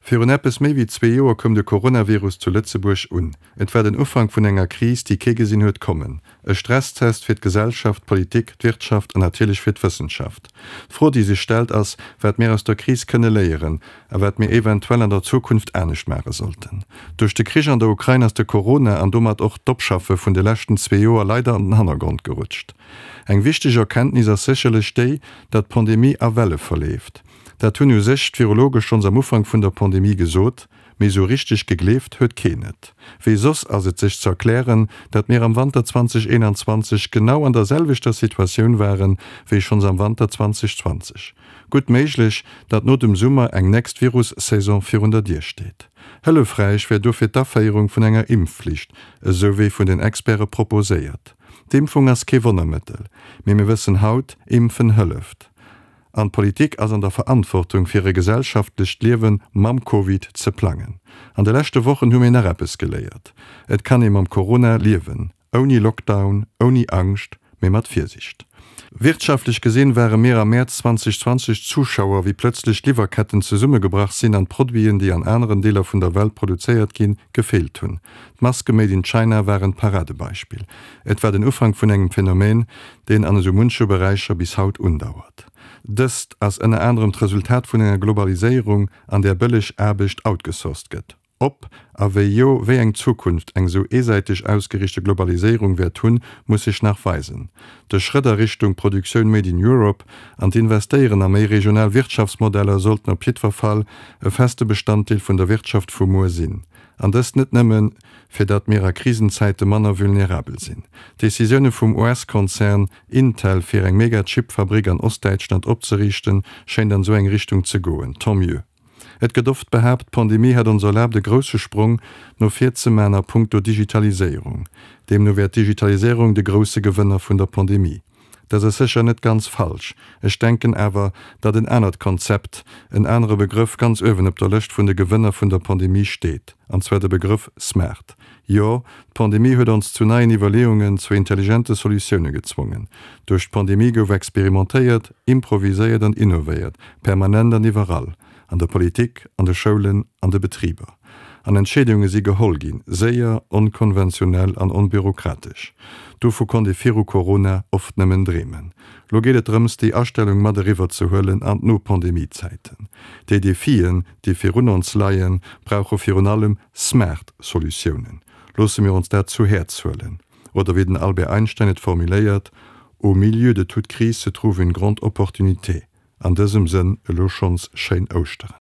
Virun eppes méi wéi zwee Joer koum de Coronavirus zu Lëtzebuerg un. Et war den Ufank vun enger Kris, déi kee gesinn huet kommen. E Stresstest fir d'Gesellschaft, d'Politik, d'Wirtschaft an natierlech fir d'Wëssenschaft. D'Fro, déi sech stellt, ass, wat mir aus der Kris kënne léieren a wat mir eventuell an der Zukunft anescht maache sollten. Duerch de Krich an der Ukrain ass de Corona an domat och d'Opschaffe vun de leschten zwee Joer leider an den Hannergrond gerutscht. Eng wichteg Erkenntnis ass sécherlech déi, datt d'Pandemie a Welle verleeft. Dat hunn u sech d'Virologe schonns am Ufank vun der Pandemie gesot, mee esou richteg gegleeft huet keen et. Wéi soss ass et sech ze erklären, datt mir am Wanter 2021 genau an der selwechter Situatioun waren, wéi schonns am Wanter 2020. Gutt méiglech, datt no dem Summer eng nächst Virus-Saison virun der Dier steet. Hëllefräich wär dofir d'Aféierung vun enger Impfflicht, esou wéi vun den Experte proposéiert. D'Impfung ass kee Wonnermëttel, mee mir wëssen haut, Impfen hëlleft. An d'Politik ass an der Verantwortung, fir e gesellschaftlecht Liewe mam Covid ze plangen. An de leschte Wochen hu mir nach eppes geléiert, Et kann ee mam Corona liewen, ouni Lockdown, ouni Angscht, mee mat Virsicht. Wirtschaftlech gesinn ware mir am Mäerz 2020 Zuschauer, wéi plëtzlech d'Liwwerketten zesummegebrach sinn an d'Produiten, déi an aneren Deeler vun der Welt produzéiert ginn, gefeelt hunn. D'Maske made in China waren d'Paradebeispill. Et war den Ufank vun engem Phänomen, deen an esou munche Beräicher bis haut undauert. Dëst ass ënner anerem d'Resultat vun enger Globaliséierung, an där bëlleg Aarbecht outgesourced gëtt. Ob, a wéi jo, wéi eng Zukunft eng esou eesäiteg ausgeriichte Globaliséierung wäert hunn, muss sech nach weisen. De Schrëtt a Richtung Produktioun made in Europe an d'Investéieren a méi regional Wirtschaftsmodeller sollten op jiddwer Fall e feste Bestanddeel vun der Wirtschaft vu muer sinn. An dëst net nëmmen, fir datt mir a Krisenzäite manner vulnerabel sinn. D'Decisioune vum US-Konzern Intel, fir eng Mega-Chip-Fabrick an Ostdäitschland opzeriichten, schéint an esou eng Richtung ze goen. Tant mieux. Et gëtt oft behaapt, d'Pandemie hätt ons erlaabt e grousse Sprong no vir ze man a punkto Digitaliséierung. Deemno wär d'Digitaliséierung de grousse Gewënner vun der Pandemie. Dat ass sécher net ganz falsch. Ech denken awer, datt en anert Konzept, en anere Begrëff ganz uewen op der Lëscht vun de Gewënner vun der Pandemie steet, an zwar de Begrëff smart. Jo, d'Pandemie huet ons zu neien Iwwerleeungen, zu intelligente Solutioune gezwongen. Duerch d'Pandemie gouf experimentéiert, improviséiert an innovéiert, permanent an iwwerall. An der Politik, an de Schoulen, an de Betriber. An Entscheedunge si geholl ginn, séier, onkonventionell an onbürokratesch. Dovu konnt ee viru Corona oft nëmmen dreemen. Lo geet et drëms, déi Astellung mat eriwwer ze huelen an d'No-Pandemie-Zäiten. Déi Defien, déi virun ons leien, brauche virun allem smart Solutiounen. Loosse mir ons dat zu Häerz huelen. Oder wéi den Albert Einstein et formuléiert, Au milieu de toute crise se trouve une grande opportunité. An dësem Sënn elo schonns schéin Ouschteren.